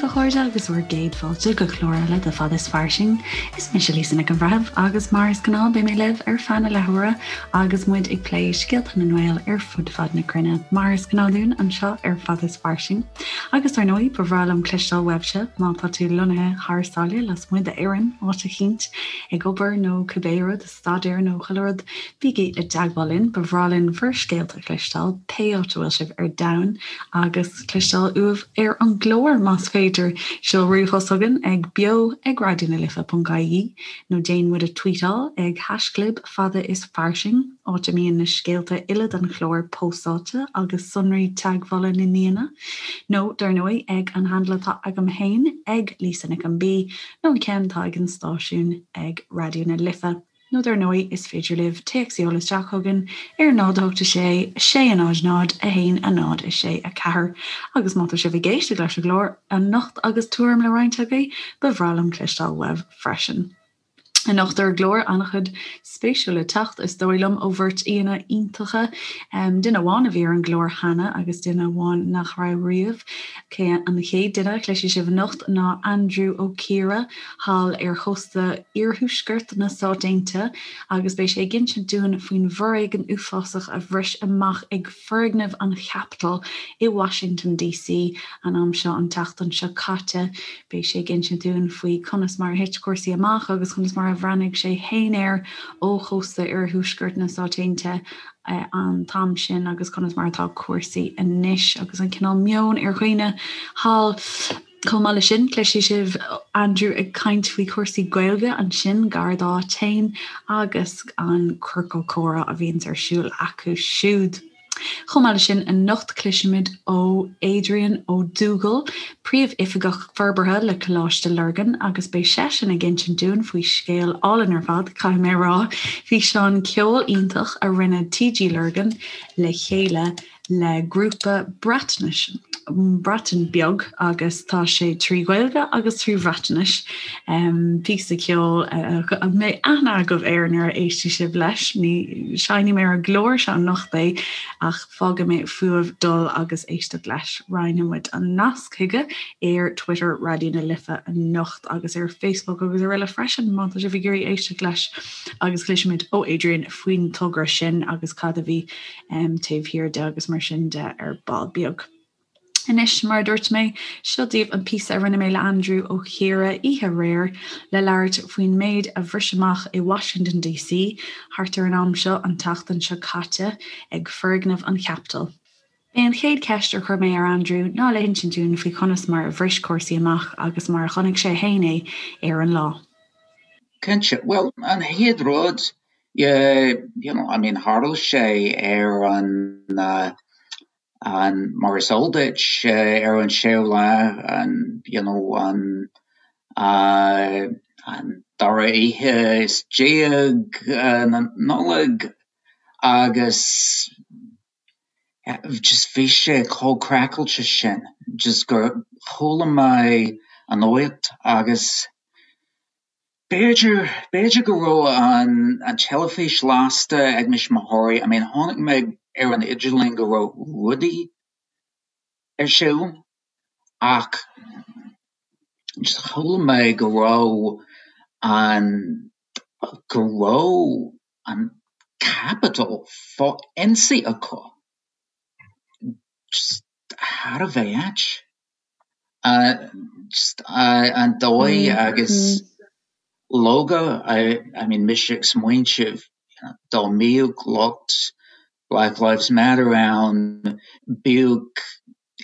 a chairde agus bhur gcéad fáilte go clár eile de Fad is Fairsing. Is mise Lisa Nic an Bhreithimh agus mar is gnáth beidh mé libh ar feadh na leathuaire agus muid ag plé scéalta na nGael ar fud fad na cruinne, mar is gnáth dúinn anseo ar Fad is Fairsing. Agus dar ndóigh, ba bhreá liom cloisteáil uaibhse má tá tú lonnaithe thar sáile lasmuigh d'Éirinn, áit eicínt, ag obair nó cibé rud, staidéar nó chuile rud, bígí i dteagmháil linn, ba bhreá linn bhur scéalta a chloisteáil, pé áit a bhfuil sibh ar domhan, agus cloisteáil uaibh ar an gclár, más féidir. Seol ríomhphost chugainn ag beo ag raidionalife.ie nó déan muid a tweetáil ag haischlib fada is fairsing, áit a mbíonn na scéalta uile don chlár póstáilte agus sonraí teagmhála na n-aíonna, nó, dar ndóigh, ag an handle atá agam féin, ag Lisa Nic an B, nó an ceann atá ag an stáisiún ag Raidió na Life. Nó dar ndóigh is féidir libh téacs a sheoladh isteach chugainn ar 0 8 6 6 0 0 1 0 6 4 agus má tá sibh ag éisteacht leis an gclár anocht agus tuairim le roinnt agaibh, ba bhreá liom cloisteáil uaibh freisin. Anocht ar an gclár, an-chuid spéisiúil le teacht, is dóigh liom, ó bheirt aíonna iontacha, duine amháin a bhí ar an gclár cheana agus duine amháin nach raibh riamh. An chéad duine a chloisfidh sibh anocht ná Andrew Ó Ciardha, thall ar chósta iarthuaisceart na Stát Aontaithe, agus beidh sé ag insint dúinn faoin bhforéigean uafásach a bhris amach ag foirgneamh an Chapitol i Washington DC an am seo an tseachtain seo caite. Beidh sé ag insint dúinn faoi conas mar a thit cúrsaí amach agus conas mar a bhreathnaigh sé féin air ó chósta iarthuaisceart na Stát Aontaithe an t-am sin agus conas mar atá cúrsaí anois agus an cineál meoin ar dhaoine thall. Chomh maith leis sin, cloisfidh sibh Andrew ag caint faoi chúrsaí Gaeilge ansin gar dá áit féin agus an ciorcal comhrá a bhíonns ar siúl acu siúd. Chomh maith leis sin, anocht cloisfimid ó Adrian Ó Dubhghaill, Príomhoifigeach Forbartha le Coláiste Lurgan agus beidh seisean ag insint dúinn faoi scéal álainn ar fad, caithfidh mé a rá, físeán ceoil iontach a rinne TG Lurgan le chéile le grúpa Breatnais, Breatain Beag agus tá sé trí Ghaeilge agus trí Bhreatnais. Píosa ceoil a mbeidh aithne agaibh air nuair a éistfidh sibh leis. Ní sheinnfidh mé ar an gclár seo anocht é ach fágfaidh mé fúibh dul agus éisteacht leis. Roinnfidh muid an nasc chuige ar Twitter Raidió na Life anocht agus ar Facebook agus araile freisin má tá sibh ag iarraidh éisteacht leis agus cloisfimid ó Adrian faoin togra sin agus cad a bhí taobh thiar de agus mar sin de ar ball beag. Anois, mar a dúirt mé, seo daoibh an píosa a rinne mé le Andrew Ó Ciardha oíche aréir le labhairt faoin méid a bhris amach i Washington DC thart ar an am seo an tseachtain seo caite ag foirgneamh an Chapitol. B'é an chéad cheist a chuir mé ar Andrew ná le hinsint dúinn faoi chonas mar a bhris cúrsaí amach agus mar a chonaic sé féin é ar an lá. Cinnte. Bhuel, an chéad rud, yeah, you know, I mean, tharla sé ar an, an, mar is eol duit, ar an séú lá, an, you know, an, an dara oíche is déag na Nollag agus just bhí sé chomh craiceáilte sin, just gur chuala mé an nuacht agus B'fhéidir, b'fhéidir go raibh an an teilifís lasta ag mo thuismitheoirí, I mean chonaic mé ar an idirlíon go raibh rudaí ar siúl ach just chuala mé go raibh an, go raibh an Capitol fá ionsaí acu. Just thar a bheith ait. An dóigh agus leoga, I mean mise ag smaointeamh dá mbíodh lucht Black Lives Matter ann, bíodh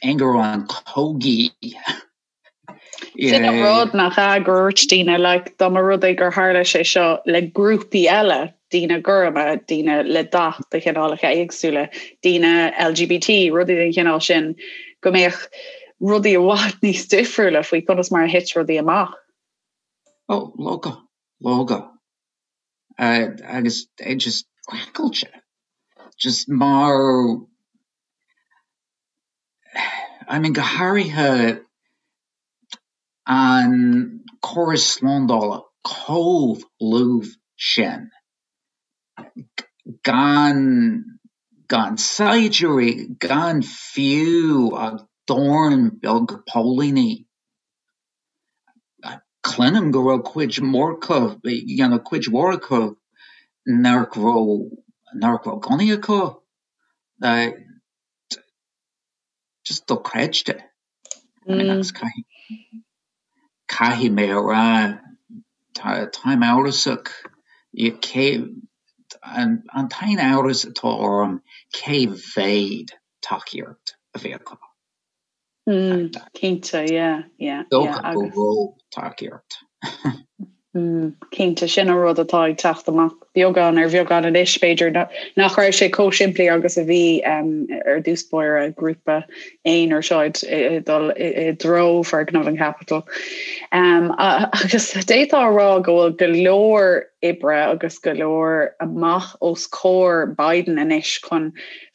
ingearán cogaidh. Sin an rud nach ea gur dhúirt daoine like dá mba rud é gur tharla sé seo le grúpaí eile, daoine gorma, daoine le dath de chineálacha éagsúla, daoine LGBT, rudaí den chineál sin, go mbeadh rudaí i bhfad níos difriúla faoi conas mar a thit rudaí amach. Ó, leoga, leoga. Agus é just craiceáilte. Just mar, I mean go háirithe an córas slándála chomh lúbh sin, gan gan saighdiúirí, gan fiú ach dorn beag póilíní. Cluinim go raibh cuid mhór acu, you know, cuid mhór acu nach raibh, nach raibh gunnaí acu. Just dochreidte. I mean, agus caithfidh, caithfidh mé a rá, tá, táim amhrasach, cé, an, an t-aon amhras atá orm cé mhéad tacaíocht a bhí acu. Cinnte, yeah, yeah, yeah, agus. Go raibh tacaíocht. Cinnte, sin an rud atá ag teacht amach beagán ar bheagán anois, b'fhéidir nach raibh sé chomh simplí agus a bhí ar dtús báire, grúpa aonair seo ag dul i dtreo foirgneamh an Capitol. Agus d'fhéadfá a rá go bhfuil go leor oibre agus go leor amach os comhair Biden anois chun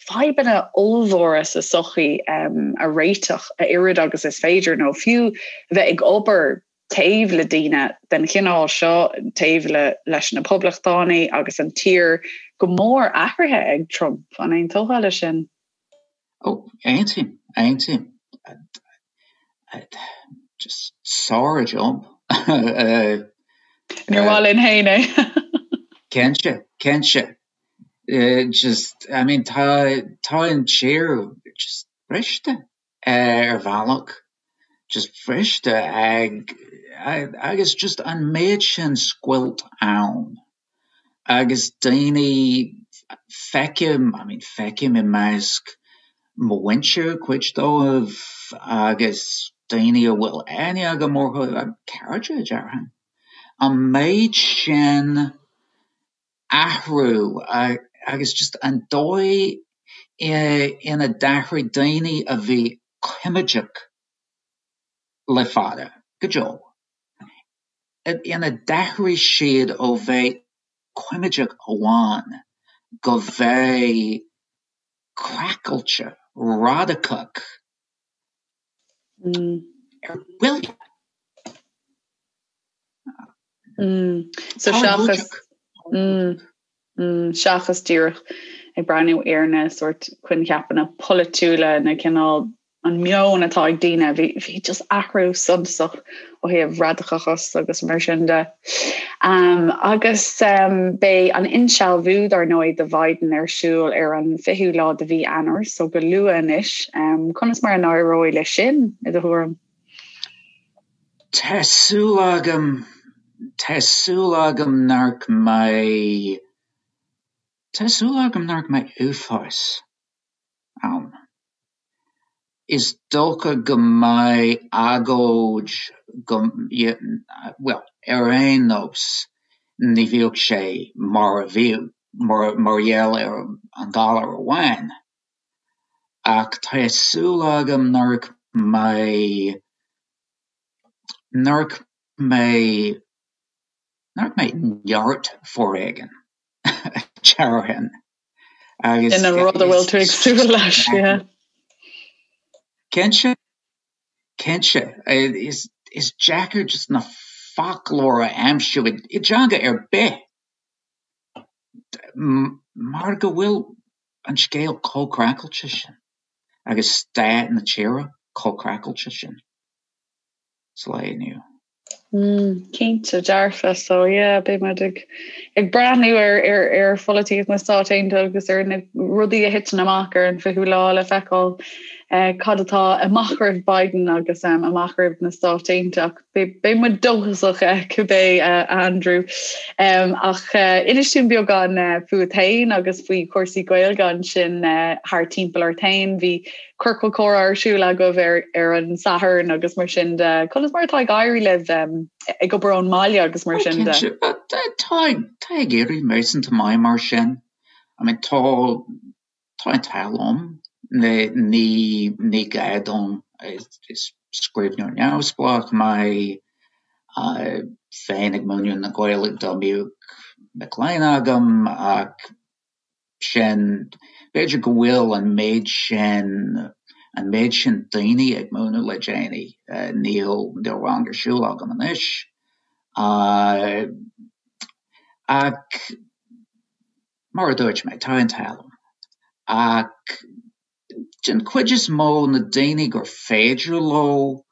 fadhbanna ollmhóra sa tsochaí a réiteach a oiread agus is féidir, nó fiú a bheith ag obair taobh le daoine den chineál seo, taobh le leis na Poblachtánaigh agus an tír go mór athraithe ag Trump. An aontófá leis sin? Ó, aontaím, aontaím. Just sár-jab. Níor mhaith linn féin é. Cinnte, cinnte. Just, I mean, tá, tá an tír just briste. ar bhealach, just briste ag, agus just an méid sin scoilt ann agus daoine, feicim, I mean feicim i measc mo mhuintir, cuid dóibh, agus daoine a bhfuil aithne agam orthu, cairde, déarfainn, an méid sin athrú agus just an dóigh ina d'athraigh daoine a bhí coimeádach le fada, go deo, ina d'athraigh siad ó bheith coimeádach amháin go bheith craiceáilte, radacach ar buile. So seachas seachas díreach ag breathnú ar na sórt coincheapanna polaitiúla na cineál an meon atá ag daoine, bhí bhí just athrú suntasach ó thaobh radacachas agus mar sin de. Um, agus um, beidh an insealbhú dar ndóigh do Biden ar siúl ar an 20ú lá de mhí Eanáir, so go luath anois. Um, conas mar a n-éireoidh leis sin i do thuairim? Tá súil agam, tá súil agam nach mbeidh, tá súil agam nach mbeidh uafás ann. Is dócha go mbeidh agóid go, bhuel, ar aon nós, ní bheadh sé mar a bhíodh, mar gheall ar an galar amháin. Ach tá súil agam nach mbeidh, nach mbeidh, nach mbeidh neart foréigin, déarfainn. Agus Sin an rud a bhfuil tú ag súil leis, yeah. Cinnte, cinnte. Is, is deacair just na foclóir a aimsiú i dteanga ar bith mar go bhfuil an scéal chomh craiceáilte sin agus staid na tíre chomh craiceáilte sin sa lá inniu. Mm, cinnte dearfa so yeah, beidh muid ag ag breathnú ar ar ar pholaitíocht na Stát Aontaithe agus ar na rudaí a thiteann amach ar an 20ú lá le feiceáil eh, cad atá amach roimh Biden agus um, amach roimh na Stáit Aontaithe ach beidh muid dóchasach eh, cibé eh, Andrew. Um, ach eh, inis dúinn beagán eh, fút féin agus faoi chúrsaí Gaeilge ansin eh, thar timpeall ort féin bhí ciorcal comhrá ar siúl agaibh ar ar an Satharn agus mar sin de. Conas mar atá ag éirí libh ag obair ón mbaile agus mar sin de? Tá tá ag éirí réasúnta maith mar sin. I mean tá tá an t-ádh liom ní ní gá dom is scríbhneoir neamhspleách mé bheinn ag múineadh na Gaeilge dá mbeadh mic léinn agam ach sin, b'fhéidir go bhfuil an méid sin, an méid sin daoine ag múineadh le déanaí, níl, níl rang ar siúl agam anois. Ach mar a dúirt mé, tá an t-ádh liom. Ach den chuid is mó na daoine gur féidir leo.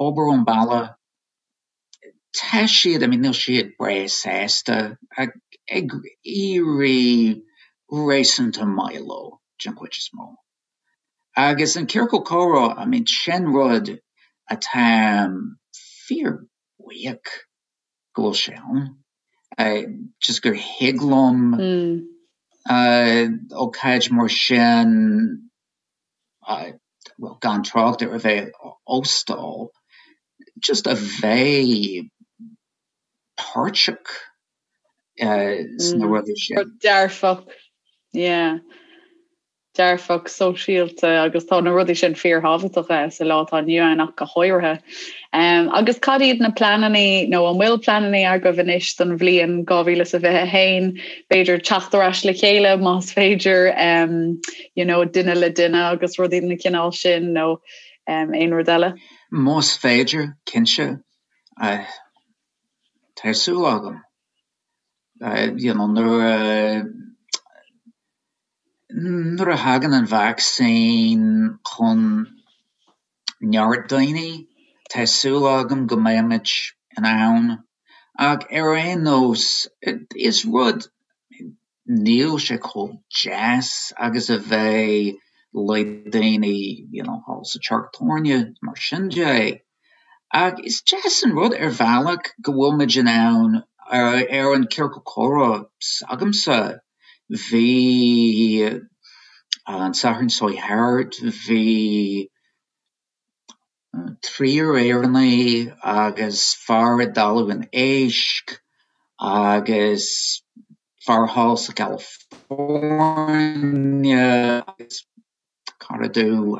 obair ón baile, tá siad, I mean níl siad breá sásta ach ag éirí réasúnta maith leo den chuid is mó. Agus an ciorcal comhrá, I mean sin rud atá fíor buíoch go bhfuil sé ann. Just gur thig liom ócáid mar sin, bhuel gan trácht ar a bheith á óstáil, just a bheith páirteach sna rudaí sin. Rud dearfach, yeah. Dearfach sóisialta agus tá na rudaí sin fíorthábhachtach sa lá atá inniu ann ach go háirithe. Agus cad iad na pleananna nó an bhfuil pleananna agaibh anois don bhliain 2021? B'fhéidir teacht ar ais le chéile más féidir you know, duine le duine agus rudaí den chineál sin nó aon rud eile? Más féidir, cinnte. Tá súil agam. You know, nuair a Nuair a thagann an vacsaín chun neart daoine, tá súil agam go mbeimid in ann, ach ar aon nós, is rud, níl sé chomh deas agus a bheith le daoine you know thall sa teach tábhairne, mar sin de. Ach is deas an rud ar bhealach go bhfuil muid in ann ar an ciorcal comhrá s'agamsa, bhí an Satharn seo thart, bhí triúr Éireannaigh agus fear i dTalamh an Éisc agus fear thall sa California agus cara domh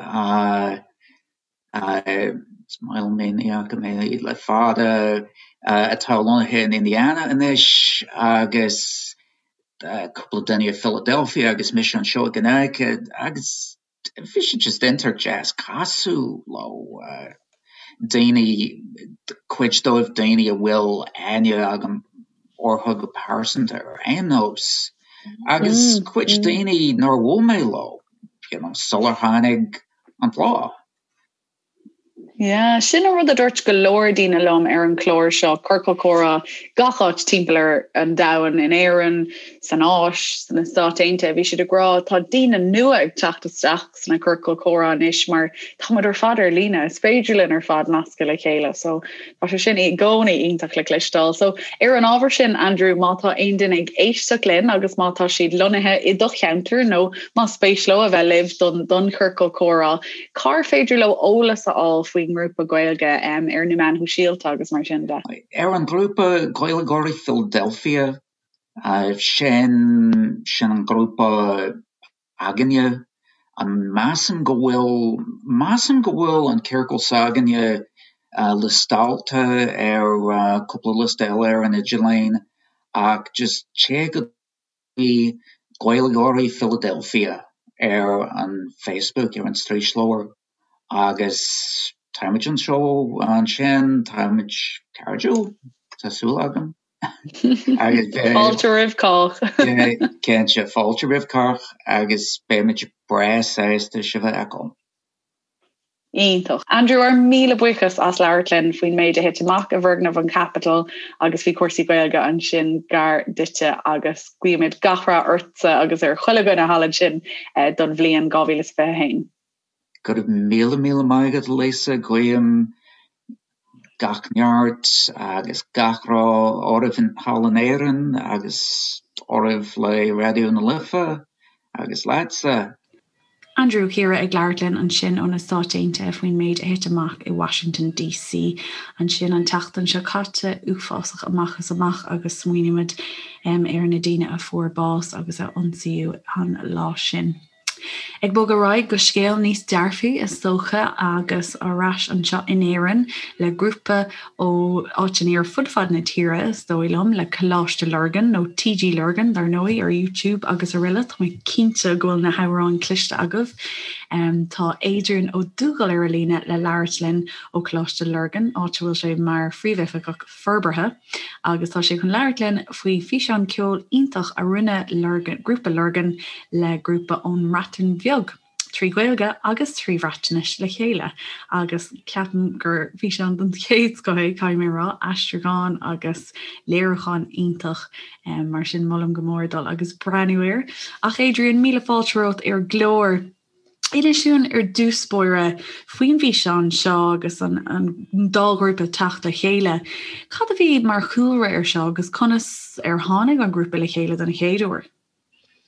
is maith liom é, ní fhaca mé le fada, atá lonnaithe in Indiana anois agus cúpla duine i Philadelphia agus mise anseo i gConnecticut agus bhí sé just iontach deas casadh leo, daoine, cuid dóibh daoine a bhfuil aithne agam orthu go pearsanta ar aon nós agus cuid daoine nár bhuail mé leo you know sular tháinig an plá. Yeah, sin an rud a dúirt go leor daoine liom ar an chlár seo, Ciorcal Comhrá, gach áit timpeall ar an domhan, in Éirinn, san Áis, sna Stáit Aontaithe, bhí siad ag rá tá daoine nua ag teacht isteach sna ciorcail comhrá anois mar tá muid ar fad ar líne, is féidir linn ar fad nascadh le chéile. So tá sé sin i gcónaí iontach le cloisteáil. So ar an ábhar sin, Andrew, má tá aon duine ag éisteacht linn agus má tá siad lonnaithe i do cheantar nó más spéis leo a bheith libh don don chiorcal comhrá, cár féidir leo eolas a fháil faoin ngrúpa Gaeilge um, ar na meáin shóisialta agus mar sin de? Ar an ghrúpa Gaeilgeoirí Philadelphia, uh, sin sin an grúpa againne. Measaim go bhfuil, measaim go bhfuil an ciorcal s'againne liostáilte ar cúpla liosta eile ar an idirlíon ach just téigh go dtí Gaeilgeoirí Philadelphia ar an Facebook, ar an straoisleabhar agus táimid anseo ansin, táimid cairdiúil, tá súil agam. Fáilte roimh cách. Cinnte, fáilte roimh cách agus beimid breá sásta sibh a fheiceáil. Iontach. Andrew, ár míle buíochas as labhairt linn faoin méid a thit amach i bhfoirgneamh an Capitol agus faoi chúrsaí Gaeilge ansin gar duitse agus guímid gach rath ortsa agus ar chuile dhuine thall ansin don bhliain 2021. Go raibh míle míle maith agat, Lisa. Guím gach neart agus gach rath oraibh thall in Éirinn agus oraibh le Raidió na Life agus leatsa. Andrew Ó Ciardha ag labhairt linn ansin ó na Stáit Aontaithe faoin méid a thit amach i Washington DC ansin an tseachtain seo caite, uafásach amach is amach agus smaoinímid ar na daoine a fuair bás agus a ionsaíodh an lá sin. Ag bogadh ar aghaidh go scéal níos dearfaí is dócha agus ar ais anseo in Éirinn le grúpa ó áiteanna ar fud fad na tíre is dóigh liom, le Coláiste Lurgan nó TG Lurgan dar ndóigh ar YouTube agus araile. Tá mé cinnte go bhfuil na hamhráin cloiste agaibh. Tá Adrian Ó Dubhghaill ar an líne le labhairt linn ó Choláiste Lurgan, áit a bhfuil sé mar Phríomhoifigeach Forbartha. agus tá sé chun labhairt linn faoi físeán ceoil iontach a rinne Lurgan, Grúpa Lurgan le grúpa ón mBreatain Bheag. 3 Ghaeilge agus 3 Bhreatnais le chéile agus ceapaim gur físeán den chéad scoth é, caithfidh mé a rá, aistriúchán agus léiriúchán iontach, mar sin molaim go mór dul agus breathnú air. Ach Adrian, míle fáilte romhat ar an gclár. Inis dúinn ar dtús báire faoin bhfíseán seo agus an dá ghrúpa teacht le chéile. Cad a bhí mar chúlra air seo agus conas ar tháinig an grúpa le chéile den chéad uair?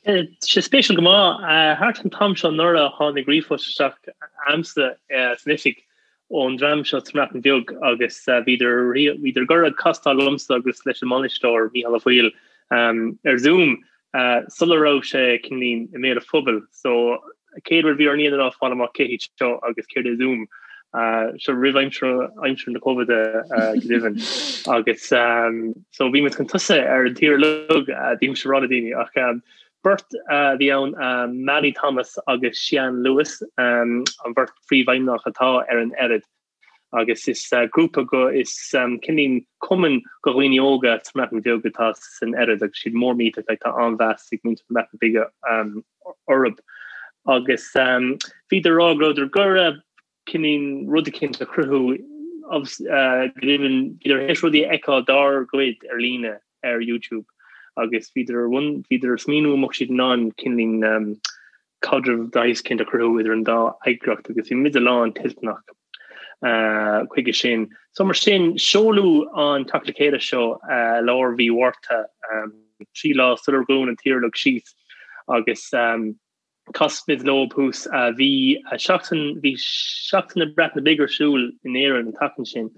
Tá sé spéisiúil go maith. Thart an t-am seo anuraidh tháinig ríomhphost isteach a'msa san oifig ón dream seo sa mBreatain Bheag agus bhíodar bhíodar ag iarraidh castáil liomsa agus leis an mbainisteoir Mícheál Ó Foighil ar Zoom sula raibh sé cineáilín i mbéal an phobail. So chéad rud a bhí orainn a dhéanamh ná fáil amach cé hiad seo agus céard é Zoom. Seo roimh aimsir aimsir na Covid go deimhin. Agus so bhí muid chun tosaigh ar an tír uilig bímse ag rá le daoine ach beirt a bhí ann Mali Thomas agus Sian Lewis an bheirt phríomhfheidhmeannach atá ar an Ered. Agus is grúpa go is cineáilín cumann go dhaoine óga sa mBreatain Bheag atá san Ered agus siad mór millteach like tá an-mheas ag muintir na Breataine Bige orthu. Agus bhíodar ag rá go rabhadar ag iarraidh cineáilín rud eicínt a chruthú go deimhin bhíodar théis rudaí a fheiceáil dár gcuid ar líne ar YouTube agus bhíodar bhíodar ag smaoineamh an mbeadh siad in ann cineáilín caidreamh de shaghas eicínt a chruthú idir an dá eagraíocht agus bhí muide lán toilteanach chuige sin. So mar sin, seoladh an teacht le chéile seo i lár mhí Mhárta, 3 lá sular dhún an tír uilig síos agus chas muid leo thuas. Bhí seachtain, bhí Seachtain na Breataine Bige ar siúl in Éirinn an tseachtain sin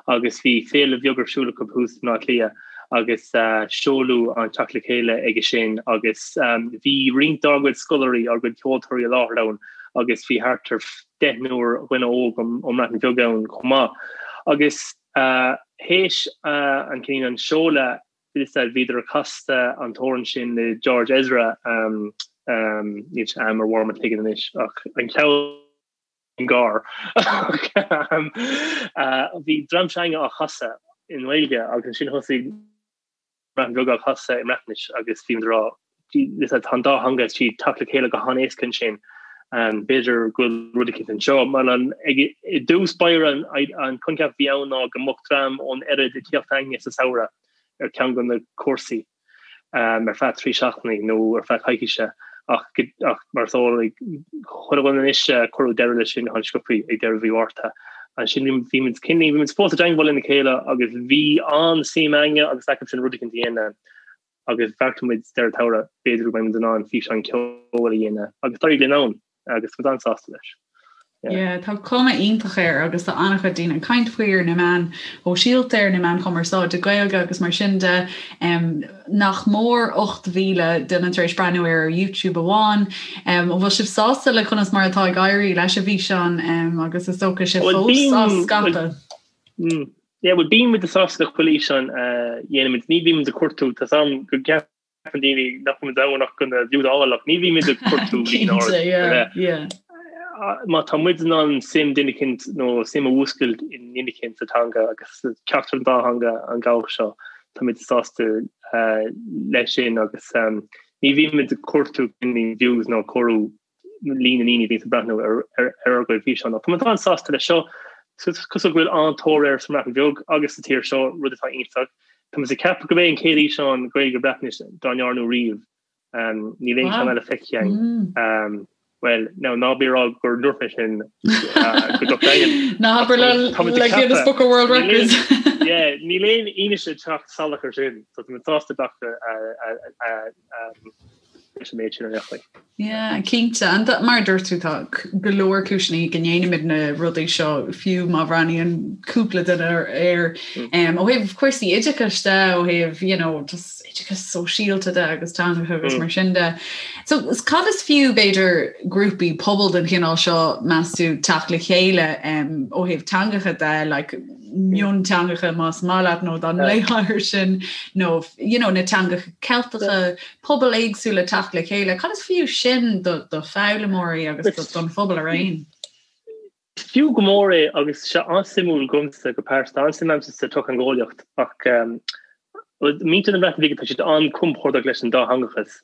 agus bhí féile bheag ar siúl acu thuas i mBaile Átha Cliath. agus seoladh an teacht le chéile aige sin agus bhí roinnt dár gcuid scoláirí, ár gcuid ceoltóirí i láthair ann agus bhí thart ar deichniúr dhuine óg ón mBreatain Bheag ann chomh maith. Agus théis an cineál an seoladh bhíodar ag casadh an t-amhrán sin le George Ezra, níl sé a'm ar bharr mo chloigeann anois ach an ceann, gar. Bhí dream s'againne á chasadh i nGaeilge agus ansin thosaigh an Bhreatain Bheag á chasadh i mBreatnais agus bhí muid ag rá tá an dá theanga ag teacht le chéile go han-éasca ansin. B'fhéidir go bhfuil rud eicínt anseo. Mar an i dtús báire an coincheap a bhí ann ná go mbeadh dream ón Ered ag tíocht chugainne sa samhradh ar ceann de na cúrsaí. ar feadh 3 seachtainí nó ar feadh coicíse ach ach mar is eol ag chuile dhuine anois cuireadh deireadh leis sin an-sciobtha ag deireadh mhí Mhárta. Ansin bhí muid cineál bhí muid fós i dteangmháil lena chéile agus bhí an-suim againne agus acu sin rud eicínt a dhéanamh agus bheartaigh muid deireadh an tsamhraidh b'fhéidir go mbeidh muid in ann físeán ceoil a dhéanamh agus d'éirigh linn ann. agus muid an-sásta leis. Yeah, tá cuma iontach air agus tá an-chuid daoine ag caint faoi ar na meáin shóisialta, ar na meáin chumarsáide Gaeilge agus mar sin de. Um, nach mór 8,000 duine tar éis breathnú air ar YouTube amháin. Um, an bhfuil sibh sásta le conas mar atá ag éirí leis an bhfíseán um, agus is dócha sibh fós á scaipeadh? Mm, yeah, well, bíonn muid sásta le chuile fhíseán a dhéanaimid. Ní bhímid ag cuartú tá a fhios a'm go gceap ceapann daoine nach bhfuil muid ann ach chun na views a fháil ach ní bhímid ag cuartú líon ard yeah. Má tá muid in ann suim duine eicínt nó suim a mhúscailt i nduine eicínt sa teanga agus ceachtar an dá theanga an bealach seo tá muid sásta leis sin agus ní bhímid ag cuartú views nó comhaireamh líon na ndaoine a bhíonns ag breathnú ar ár gcuid físeán. Ach tá muid an-sásta leis seo. Is cosúil go bhfuil an-tóir air sa mBreatain Bheag agus sa tír seo, rud atá iontach. Tá muid ag ceapadh gurb é an chéad fhíseán Gaeilge Breatnais dá ndearnadh riamh. Níl aon cheann eile feicthe againn. Bhuel, now ná bí ag rá gur ndúirt mé sin go docht daingean. Ná habair le Guinness Book of World Records. Yeah, níl aon fhianaise ag teacht salach ar sin, so tá muid sásta glacadh leis an méid sin ar aon chaoi. Yeah, cinnte. And mar a dúirt tú tá go leor cúiseanna go ndéanaimid na rudaí seo fiú má bhreathnaíonn cúpla duine air. Um, ó thaobh cúrsaí oideachais de, ó thaobh you know, just oideachas sóisialta de agus teangacha agus mar sin de. So cad is fiú b'fhéidir grúpaí pobail den chineál seo meas tú teacht le chéile um, ó thaobh teangacha de, like, mionteangacha más maith leat nó dá nglaofá air sin nó you know, na teangacha Ceilteacha, pobail éagsúla teacht le chéile, cad is fiú sin do do foghlaimeoirí agus don phobal araon? Is fiú go mór é agus sé an-suimiúil dhomsa go pearsanta, an-suim a'msa sa tsochtheangeolaíocht ach muintir na Breataine Bige tá siad an-compordach leis an dátheangachas.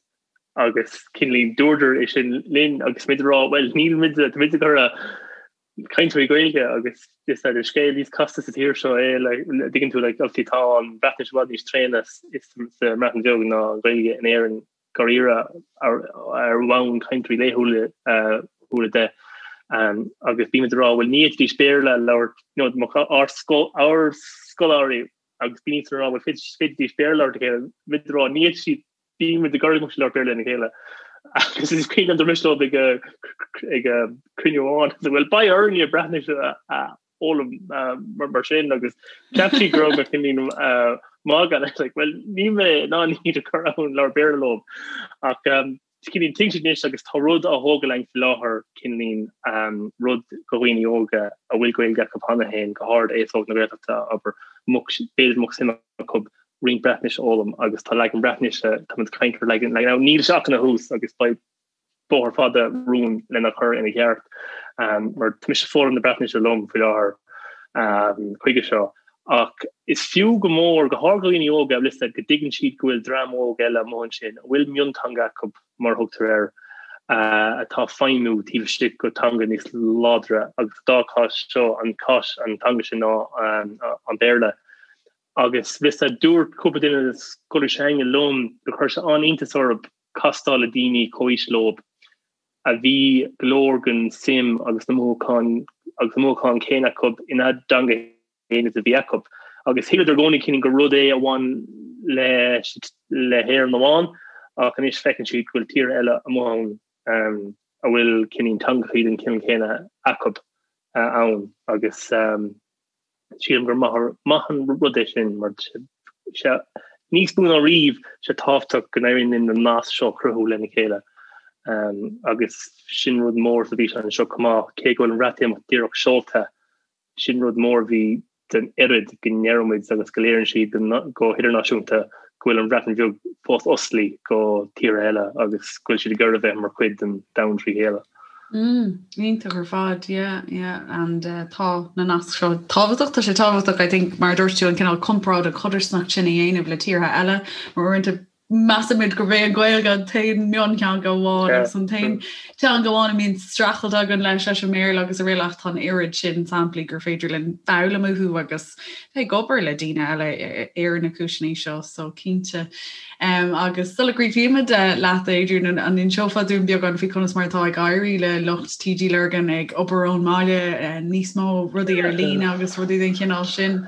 Agus cineáilín dúradar é sin linn agus muid ag rá bhuel níl muid tá muid ag iarraidh cainteoirí Gaeilge agus is é an scéal níos casta sa tír seo é like dtuigeann tú like obviously tá an Bhreatnais i bhfad níos tréine sa mBreatain Bheag ná an Ghaeilge in Éirinn dáiríre ar ar bhonn cainteoirí laethúla uh, de. Um, agus bímid ag rá bhuel ní fhéadfaidís Béarla a labhairt you know, ár ár scoláirí agus bíonn siad ag rá bhuel féadfaidís Béarla a labhairt le chéile muid ag rá ní fhéadfaidh siad bímid ag iarraidh go mbeadh siad ag labhairt Béarla lena chéile. Agus is cuimhin liom dúirt mise leo ag ag cruinniú amháin bhuel beidh orainne Breatnais a fhoghlaim mar sin agus cheap siad go raibh mé cineáilín ag magadh like well níl mé in ann iad a chur ann labhairt Béarla leo ach cineáilín tuigeann siad anois agus tá rud á thógáil againn faoi láthair cineáilín rud do dhaoine óga a bhfuil Gaeilge acu cheana féin go háirid aos óg na Gaeltachta abair b'fhéidir go mbeadh suim acu roinnt Breatnaise a fhoghlaim agus tá leagan Breatnaise táimid ag caint ar leagan leagan níl sé ach ina thús agus beidh bóthar fada romhainn lena chur ina cheart mar tá mise ag foghlaim na Breatnaise liom faoi láthair chuige seo. Ach is fiú go mór, go háirid do dhaoine óga, bhfuil fhios a'd, go dtuigeann siad go bhfuil dream óg eile amuigh ansin a bhfuil mionteanga acu, mar a thugtar air, atá ag feidhmiú taobh istigh de theanga níos láidre agus sa dá chás seo an cás an teanga sin ná an Béarla. Agus bhfuil fhios a'd, dúirt cúpla duine de na scoláirí s'againne liom gur chuir sé an-iontas orthu castáil le daoine comhaois leo a bhí go leor den suim agus na mothúcháin agus na mothúcháin céanna acu ina dteanga féin is a bhí acu. Agus shíleadar i gcónaí cineál gur rud é a bhain le le hÉirinn amháin ach anois feiceann siad go bhfuil tíortha eile amuigh ann a bhfuil cineál teangachaí den chineál céanna acu ann agus Sílim gur maith an rud é sin mar sé níos mó ná riamh sé tábhachtach go n-éiríonn linn na naisc seo a chruthú lena chéile agus sin rud mór sa bhfíseán seo chomh maith, cé go bhfuil an Bhreatimeacht díreach seolta, sin rud mór a bhí den oiread go ndeireann muid agus go léiríonn siad go hidirnáisiúnta go bhfuil an Bhreatain Bheag fós oscailte go tíortha eile agus go bhfuil siad ag iarraidh a bheith mar chuid den domhan trí chéile. Mm, iontach ar fad, yeah, yeah, and uh, tá na naisc seo tábhachtach, tá sé tábhachtach, I think, mar a dúirt tú an cineál comparáid an chodarsnacht sin a dhéanamh le tíortha eile, mar uaireanta measaimid gurb é an Ghaeilge an t-aon mhionteanga amháin agus an t-aon teanga amháin a mbíonn streachailt againn leis leis an mBéarla agus araile ach tá an oiread sin samplaí gur féidir linn foghlaim uathu agus bheith ag obair le daoine eile ar na cúiseanna seo so cinnte. Um, agus sula gcríochnaímid eh, leat Adrian an, an inseofá dúinn beagán faoi conas mar atá ag éirí le lucht TG Lurgan ag obair ón mbaile eh, níos mó rudaí ar líne agus rudaí den chineál sin.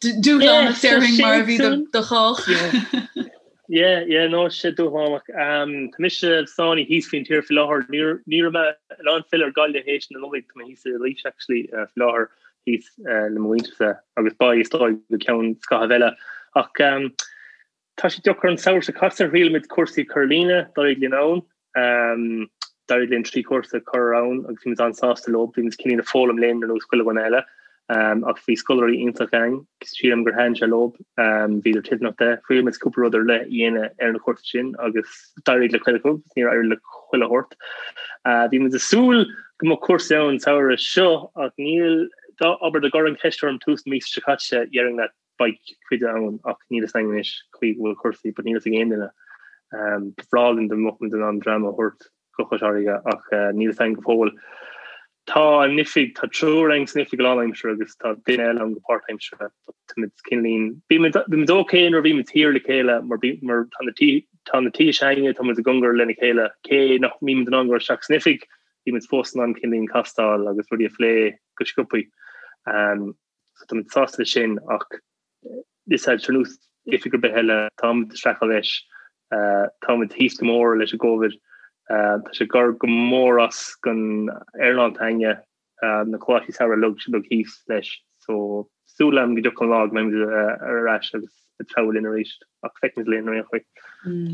Dúshlánach déarfainn mar a bhí do chách. Yeah, yeah, no, sé dúshlánach. Um, tá mise sáinnithe thíos faoin tír faoi láthair. Ní raibh mé in ann filleadh ar Gaillimh théis na Nollag, tá mé thíos i Laois actually uh, faoi láthair thíos uh, le mo mhuintirse agus beidh is dóigh go ceann scaithimh eile. Ach um, tá sé deacair an samhradh seo caite thriail muid cúrsaí cur ar líne, d'éirigh linn ann. Um, d'éirigh linn 3 chúrsa a chur ann agus bhí muid an-sásta leo, bhí muid cineál ag foghlaim linn ar nós chuile dhuine eile. Um, ach bhí scoláirí iontach againn, sílim gur thaitin sé leo, um, bhíodar toilteanach de. Thriail muid cúpla rud ar leith a dhéanamh ar na cúrsaí sin agus d'éirigh le cuid acu, níor éirigh le chuile shórt. Uh, bhí muid ag súil go mbeadh cúrsaí ann an samhradh seo ach níl, dá, abair, dá gcuirfeá an cheist orm tús na míosa seo caite, déarfainn leat beidh cuid ann ach níl fhios againn anois chaoi go bhfuil cúrsaí but níl fhios ag aon duine. Ba bhreá linn dá mbeadh muid in ann dream a thabhairt go Cois Fharraige ach níl fhios againn go fóill. Tá an oifig, tá triúr againn san oifig go lánaimseartha agus tá duine eile ann go páirtaimseartha but tá muid cineáilín, bhí muid, bhí muid ok nuair a bhí muid thiar le chéile mar bhí, mar tá na tí, tá na tithe s'againne, tá muid i gcóngar lena chéile cé nach mbímid in ann dul isteach san oifig, bhí muid fós in ann cineáilín castáil agus rudaí a phlé go sciobthaí. So tá muid sásta leis sin ach is ar nós oifig ar bith eile, táimid ag streachailt leis, táimid thíos go mór leis an gCovid, tá sé ag cur go mór as don earnáil s'againne, na coláistí samhraidh uilig thíos leis. So súil agam go dtiocfaidh an lá go mbeidh muid ar ais agus ag treabhadh linn arís ach feicfimid linn ar aon chaoi.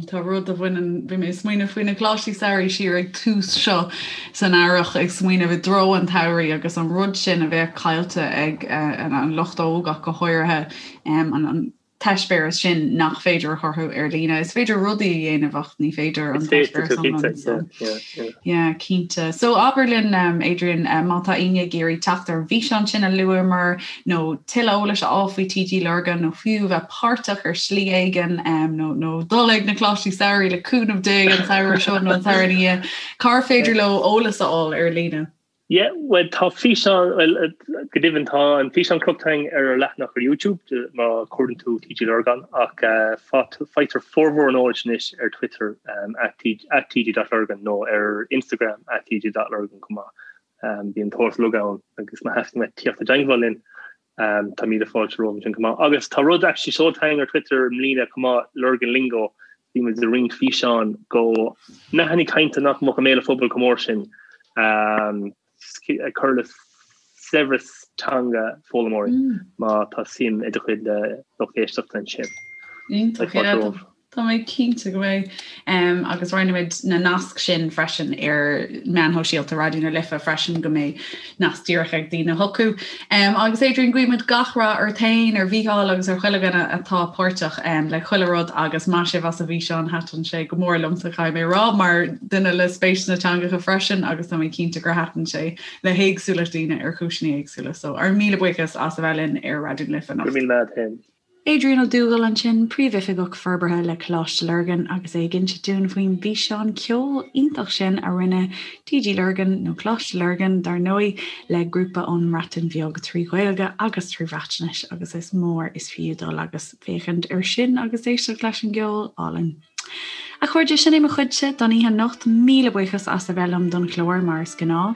Tá rud a bhaineann, bhí mé ag smaoineamh faoi na coláistí samhraidh siar ag tús seo san earrach, ag smaoineamh i dtreo an tsamhraidh agus an rud sin a bheadh caillte ag an lucht óg ach go háirithe, an. t-eispéireas sin nach féidir a chruthú ar líne. Is féidir rudaí a dhéanamh ach ní féidir an t-eispéireas iomlán. So, yeah, cinnte. So abair linn um, Adrian, um, má tá éinne ag iarraidh teacht ar an bhfíseán sin a luamar nó tuilleadh eolais a fháil faoi TG Lurgan nó fiú bheith páirteach ar shlí éigin um, nó, nó dul ag na Coláistí Samhraidh le cúnamh Dé an samhradh seo nó an samhradh ina dhiaidh, cár féidir leo eolas a fháil ar líne? Yeah, bhuel tá físeán, bhuel go deimhin tá an físeán crochta againn ar ár leathanach ar YouTube má chuardaíonn tú TG Lurgan ach faightear formhór an eolais anois ar Twitter at tg.lurgan nó ar Instagram at tg.lurgan chomh maith. Bíonn an t-eolas uilig ann agus má theastaíonn uait tíocht i dteangmháil linn tá míle fáilte romhat ansin chomh maith. Agus tá rud actually seolta againn ar Twitter i mbliana chomh maith, Lurgan Lingo, bhí muid ag roinnt físeán go nathanna cainte nach mbeadh i mbéal an phobail chomh mór sin ag cur le saibhreas teanga foghlaimeoirí má tá suim ag do chuid lucht éisteachta ansin. Iontach. Tá mé cinnte go mbeidh. Agus roinnfimid na naisc sin freisin ar meáin shóisialta Raidió na Life freisin go mbeidh nasc díreach ag daoine chucu. Agus Adrian, guímid gach rath ort féin, ar Mhícheál agus ar chuile dhuine atá páirteach le chuile rud agus maith sibh as an bhfíseán, thaitin sé go mór liomsa, caithfidh mé a rá, mar duine le spéis sna teangacha freisin agus tá mé cinnte gur thaitin sé le héagsúlacht daoine ar chúiseanna éagsúla. So ár míle buíochas as a bheith linn ar Raidió na Life anocht. Go raibh míle maith agat féin. Adrian Ó Dúghaill ansin, Príomhoifigeach Forbartha le Coláiste Lurgan agus é ag inse dúinn faoin bhfíseán ceoil iontach sin a rinne TG Lurgan, nó Coláiste Lurgan dar ndóigh, le grúpa ón mBreatain Bheag trí Ghaeilge agus trí Bhreatnais agus is mór is fiú dul agus féachaint air sin agus éisteacht leis an gceol álainn. A chairde, sin é mo chuidse don oíche anocht. Míle buíochas as a bheith liom don chlár mar is gnáth.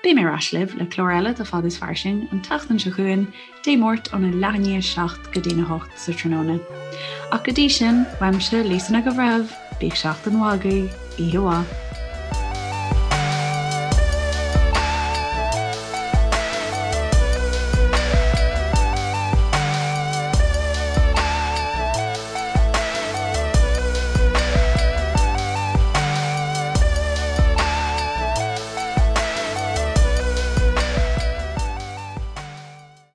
Beidh mé ar ais libh le clár eile de Fad is Fairsing an tseachtain seo chugainn, Dé Máirt óna leath i ndiaidh 7 go dtína 8 sa tráthnóna. Ach go dtí sin, uaimse, Lisa Nic an Bhreithimh, bíodh seachtain mhaith agaibh, oíche mhaith.